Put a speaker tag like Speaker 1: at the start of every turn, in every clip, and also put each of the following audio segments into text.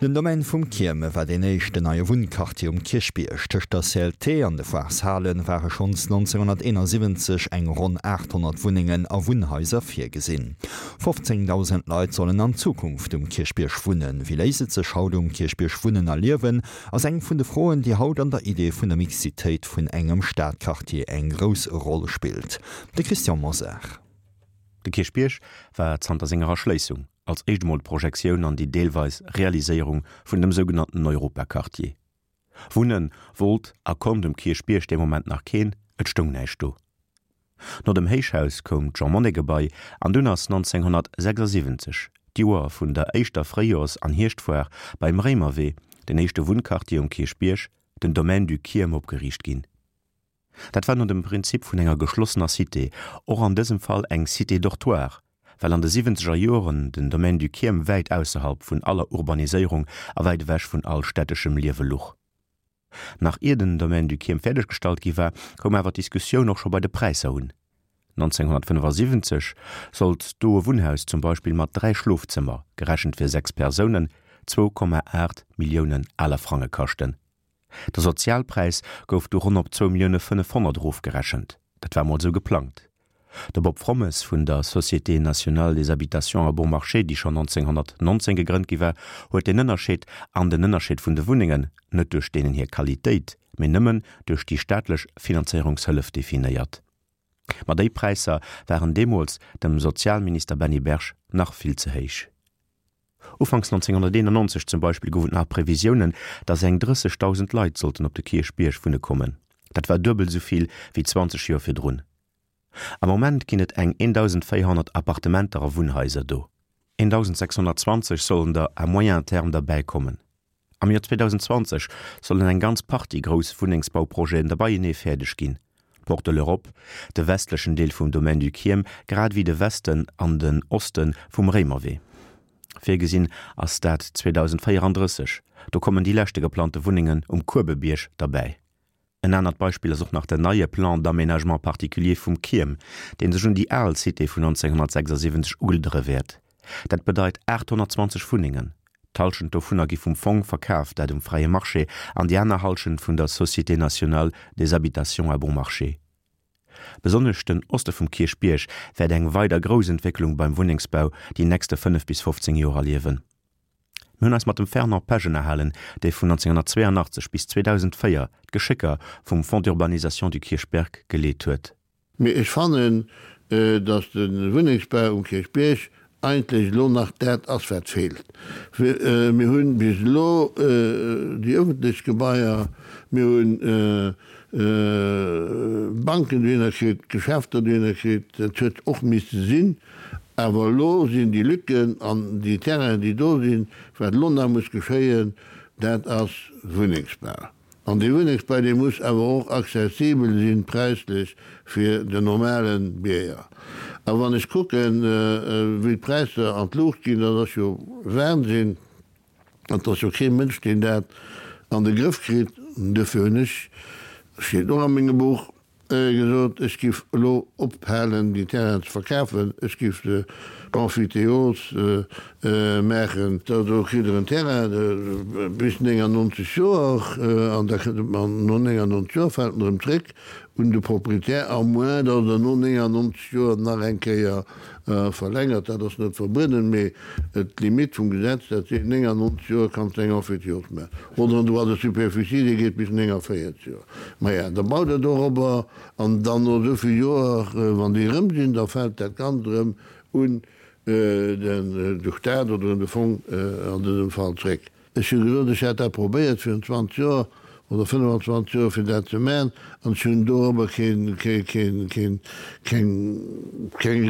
Speaker 1: Den Domaine vum Kierme war deen éischten neie Wunnquartier um Kierchbierg. Tëscht der CLT an de Foireshale ware schonns 1971 eng ronn 800 Wunnengen a Wunnhaiser virgesinn. 15.000 Leit sollen an Zukunft um Kierchbierg wunnen. Wéi léisst et sech haut um Kierchbierg wunnen a liewen, ass eng vun de Froen, déi haut an der Idee vun der Mixitéit vun engem Stadquartier eng grouss Roll spillt. De Christian Mosar.
Speaker 2: De Kierchbierg war zanter senger Erschléissung als éischt emol d'Projektioun an déi deelweis Realiséierung vun dem sougenannten Europaquartier. Wunne wollt a konnt um Kierchbierg dee Moment nach keen, et stoung näischt do. No dem Héichhaus koum d'Jean-Monnet-Gebai an dunn ass 1976, d'Joer vun der éischter Fréijoers an Hierschtfoire beim Réimerwee, den éischte Wunnquartier um Kierchbierg, den Domaine du Kierm opgeriicht ginn. Dat war no dem Prinzip vun enger geschlossener Cité, och an dësem Fall eng Cité dortoir, well an de siwwenzeger Joren den Domaine du Kierm wäit ausserhalb vun aller Urbaniséierung a wäit ewech vun all städteschem Liewe luch. Nach ier den Domaine du Kierm fäerdeggestallt gi war, koum awer d'Diskussioun och scho bei de Präisser un. 1975 sollt do e Wunnhaus zum Beispill mat 3 Schlofzëmmer, gerechent fir 6 Persounen, 2,8 Milliounen aler Frange kaschten. De Sozialpräis gouf du ronn op zwou Millioune 500 erofgerechent. Dat war mol esou geplangt. De Bob Frommes vun der Société nationale des habitations à bon marché, déi schonn 1919 gegrënnt gi war, huet deen Ënnerscheed an den Ënnerscheed vun de Wunnengen net duerch deenen hir Qualitéit, mee nëmmen duerch déi staatlech Finanzéierungshëllef definéiert. Ma déi Präisser waren deemools dem Sozialminister Benny Berg nach vill ze héich. Ufanks 1991 zum Beispill gouf et nach Previsiounen, datt eng 30.000 Leit sollten op de Kierchbierg wunne kommen. Dat war duebel esou vill wéi 20 Joer virdrun. Am Moment ginn et eng 1.400 Appartementer a Wunnhaiser do. 1.620 sollen der à moyen terme derbäi kommen. Am Joer 2020 sollen eng ganz Partie grouss Wunnengsbauprojeten der beienee fäerdeg ginn, d'Porte de l'Europe, de westlechen Deel vum Domaine du Chiem grad ewéi de Westen an den Oste vum Réimerwee. Virgesinn ass dat 2034, do kommen déi leschte geplante Wunnengen um Kuebebierg derbäi. En anert Beispill ass och nach den neie Plan d'aménagement particulier vum Kierm, dee sech un déi al Cité vun 1976 ugliddere wäert. Dat bedeit 820 Wunnengen. D'Hallschent dovunner gi vum Fong verkaf, dat um fräie Marché, an déi aner Hallschent vun der Société nationale des habitations à bon marché. Besonnesch den Oste vum Kierchbierg wäert eng weider grouss Entwécklung beim Wunnengsbau déi nächste 5 bis 15 Joer erliewen. Mir hunn eis mat dem Fernand Pesch ënnerhalen, dee vun 1982 bis 2004 d'Geschécker vum Fonds d'urbanisation du Kirchberg geleet huet.
Speaker 3: Mee ech fannen, datt de Wunnengsbau um Kierchbierg eigentlech elo nach dat ass, wat feelt. Mir hu bis elo déi ëffentlech Gebaier, mir hunn Banken dohinner kritt, Geschäfter dohinner kritt, dat huet och misse sinn. Awer elo sinn déi Lücken an déi Terrainen, déi do sinn, wat elo nach muss geschéien, dat ass Wunnengsbau. An dee Wunnengsbau, dee muss awer och accessibel sinn präislech fir den normale Bierger. A wann ech kucken, wéi d'Präisser an d'Luucht ginn, dat ass jo Wahnsinn. An et ass jo kee Mënsch, deen dat an de Grëff kritt. Duerfir hunn ech, steet och a mengem Buch, gesot, ech giff elo ophalen, déi Terrainen ze verkafen, ech giff se emphytéose maachen. Da do kritt Der en Terrain bis 99 Joer an da kënnt en no 99 Joer fält en erëm zréck un de Proprietär, à moins datt Der no 99 Joer nach eng Kéier verlängert. Dat ass net verbueden, mee d'Limite vum Gesetz, dat seet 99 Joer kanns de eng Emphytéose maachen. Oder en Droit de superficie, dee geet bis 49 Joer. Maja, da baut Der dorobber an dann no esou vill Joer, wann déi erëm sinn, da fält dat Ganzt erëm un de Staat oder un de Fong an dësem Fall zréck. Ech hu gesot, ech hätt dat probéiert virun 20 Joer oder 25 Joer, fir dat ze maachen, an ech hunn dorobber keng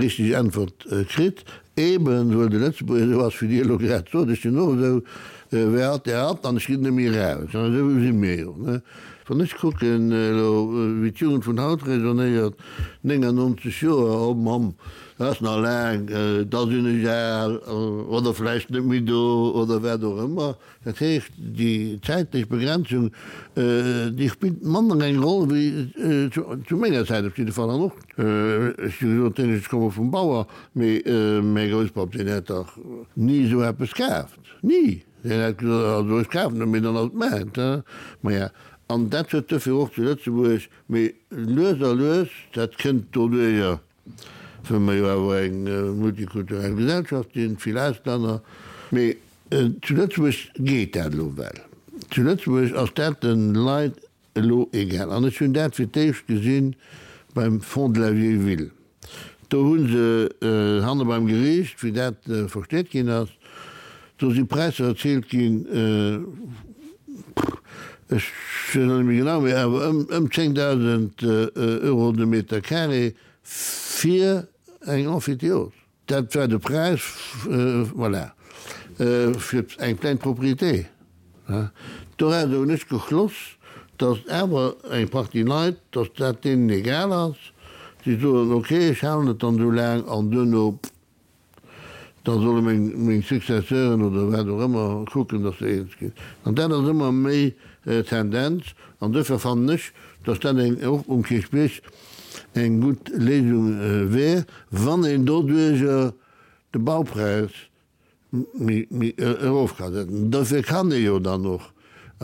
Speaker 3: richteg Äntwert kritt, eeben well de Lëtzebuerger esou ass, wéi Dir elo grad sot. Ech sinn och esou, Wer hat, der hat, an ech ginn net méi eraus. An esou si mir jo. Wann ech kucken elo, wéi d'Jugend vun haut raisonnéiert, 99 Joer, oh Mamm, dat ass nach laang, da sinn ech al oder vläicht net méi do oder wat och ëmmer. Dat heescht, déi zäitlech Begrenzung, déi spillt manner eng Roll wéi zu menger Zäit op jidde Fall. An och, ech hu gesot, ech komme vum Bauer, mee mäi Grousspapp, deen hätt dach ni esou eppes kaaft, ni! Deen hätt gesot, also ech kafen et, mee dann ass et mäint. Maja, an dat huet duerfir och zu Lëtzebuerg, mee lues a lues, dat kënnt doduerjer, wëll mer jo awer eng multikulturell Gesellschaft sinn, vill Auslänner, mee zu Lëtzebuerg geet dat elo well. Zu Lëtzebuerg ass dat de Leit Elo egal. An ech hunn dat fir d'éischt gesinn beim Fonds de la vieille ville. Do hu se hanne beim Geriicht, wéi dat versteet ginn ass, do si Präisser erziilt ginn, ech weess elo net méi genau, mee awer ëm 10.000 Euro de Meter carré fir eng Emphytéose. Dat war de Präis, voilà, fir eng pleine propriété. Doraus hunn ech geschloss, datt awer eng Partie Leit, datt dat deenen egal ass. Déi soen, ok, ech halen et dann esou laang an duerno, da solle meng Successeuren oder wat och ëmmer kucken, datt se eens ginn. An dat ass ëmmer méi d'Tendenz. An duerfir fannen ech, datt dat eng och um Kierchbierg eng gutt Léisung wär, wann een doduerjer de Baupräis méi erof ka setzen. Dofir kann ee jo dann och,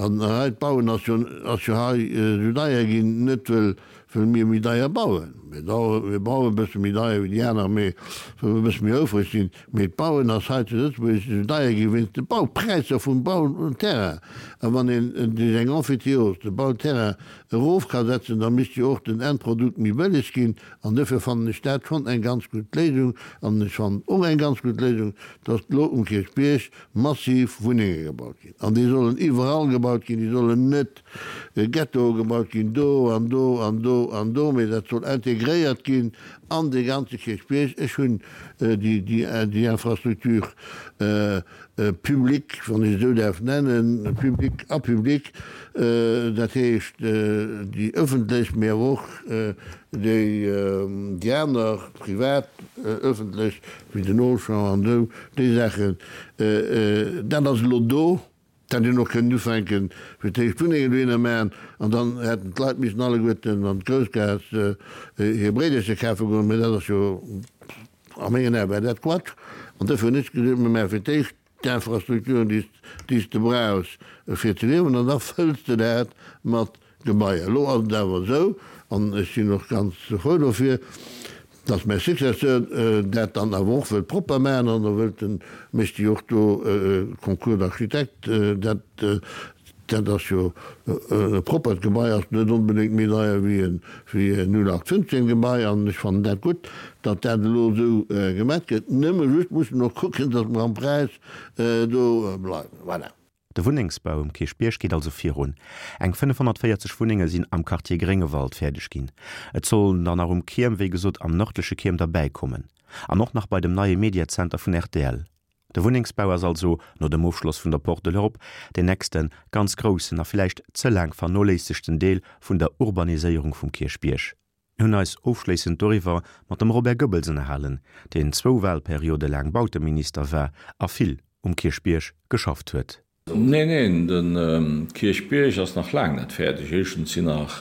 Speaker 3: an hei d'Bauen ass jo ass jo hei esou deier ginn, net wëll wëll mir méi deier bauen, mir bauen e bësse méi deier wéi déi aner, mee wëll mer e bësse méi houfreg sinn, Mee d'Bauen ass hei zu Lëtzebuerg esou deier gi wéinst de Baupräisser vum Bauterrain. A wann een duerch eng Emphytéose de Bauterrain erof ka setzen, da misst jo och den Endprodukt méi bëlleg ginn. An duerfir fannen ech dat schonn eng ganz gutt Léisung. An ech fannen och eng ganz gutt Léisung, datt elo um Kierchbierg massiv Wunnenge gebaut ginn. An déi sollen iwwerall gebaut ginn, déi sollen net Ghettoe gebaut ginn, do an do an do an do, mee dat soll integréiert ginn an dee ganze Kierchbierg. Ech hunn déi Infrastructure publique, wann ech et esou däerf nennen, publique a publique, dat heescht déi ëffentlech, mee awer och déi aner privat, ëffentlech, wéi den Auchan an esou, déi Saachen, dat ass elo do. D'hätt een och kënnen ufänken, fir d'éischt Wunnengen dohinner maachen, an dann hätten d'Leit missen alleguerten an d'Groussgaass hir Bréidercher kafe goen. Mä dat ass jo, a mengen Ae war dat Quatsch. An dofir hunn ech gesot, mir maache fir d'éischt d'Infrastrukturen, déi s de brauchs fir ze liewen, an da fëlls de dat mat Gebaier. Elo ass et awer esou, an ech sinn och ganz frou dofir, dass mäi Successeur dat dann awer och wëllt propper maachen an da wëllt en, mécht jo och do e Concours d'architectes, dat, dat ass jo e proppert Gebai, ass net onbedéngt méi deier wéi e, wéi e 0815 Gebai an ech fannen dat gutt, datt dat elo esou gemat gëtt. Nëmme just mussen mer och kucken, dass mer am Präis do bleiwen. Voilà.
Speaker 2: De Wunnengsbau um Kierchbierg geet also virun. Eng 540 Wunnenge sinn am Quartier Gréngewald fäerdeg ginn. Et sollen der nach um Kierm, wéi gesot am nërdleche Kierm derbäi kommen. An och nach bei dem neie Mediazenter vun rtl. De Wunnengsbau ass also, no dem Ofschloss vun der Porte de l'Europe, deen nächste ganz groussen a villäicht ze laang vernoléissegten Deel vun der Urbaniséierung vum Kierchbierg. Mir hunn eis ofschléissend doriwwer mat dem Robert Goebbels ënnerhalen, deen zwou Wahlperiode laang Bauteminister war a vill um Kierchbierg geschafft huet.
Speaker 4: Neen, neen, de Kierchbierg ass nach laang net fäerdeg. Éischtens sinn nach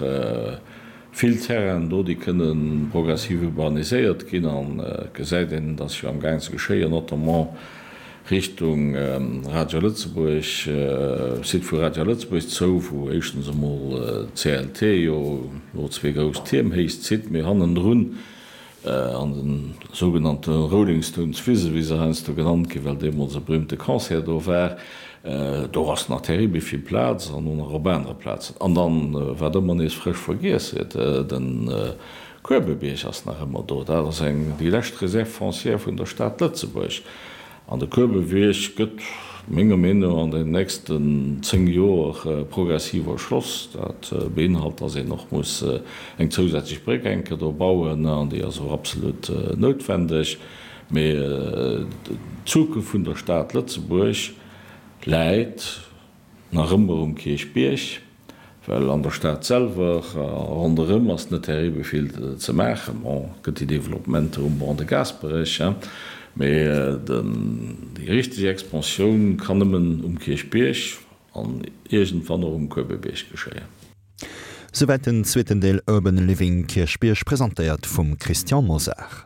Speaker 4: vill Terrainen do, déi kënne progressiv urbaniséiert ginn. An et gesäit een, et ass jo amgaang ze geschéien, notamment Richtung Radio Lëtzebuerg, Site vu Radio Lëtzebuerg zou, wou éischtens emol d'CLT jo elo zwee grouss Tierm héich zitt, mee hannendrun an de sougenannte Rolling Stones Wise, wéi se heiansdo genannt ginn, well deemools e berühmte Concert do war, do ass nach terribel vill Plaz an och nach op anere Plazen. An dann, wat ëmmer nees frësch vergiess gëtt, de Kuebebierg ass nach ëmmer do. Dat ass eng, déi lescht Réserve foncière vun der Stad Lëtzebuerg. An de Kuebebierg gëtt, menger Meenung no, an den nächsten 10 Joer progressiv erschloss. Dat beinhalt, dass een och muss eng zousätzlech Bréck eng Kéier do bauen, an déi ass och absolut noutwendeg. Mee d'Zukunft vun der Stad Lëtzebuerg läit nach ëmmer um Kierchbierg. Well an der Stad selwer a ronderëm ass net terribel vill ze maachen. Bon, et gëtt déi Developpementer um Ban de Gaasperech, mee déi richteg Expansioun kann nëmmen um Kierchbierg an iergendwann och um Kuebebierg geschéien.
Speaker 1: Souwäit den zweeten Deel Urban Living Kierchbierg, presentéiert vum Christian Mosar.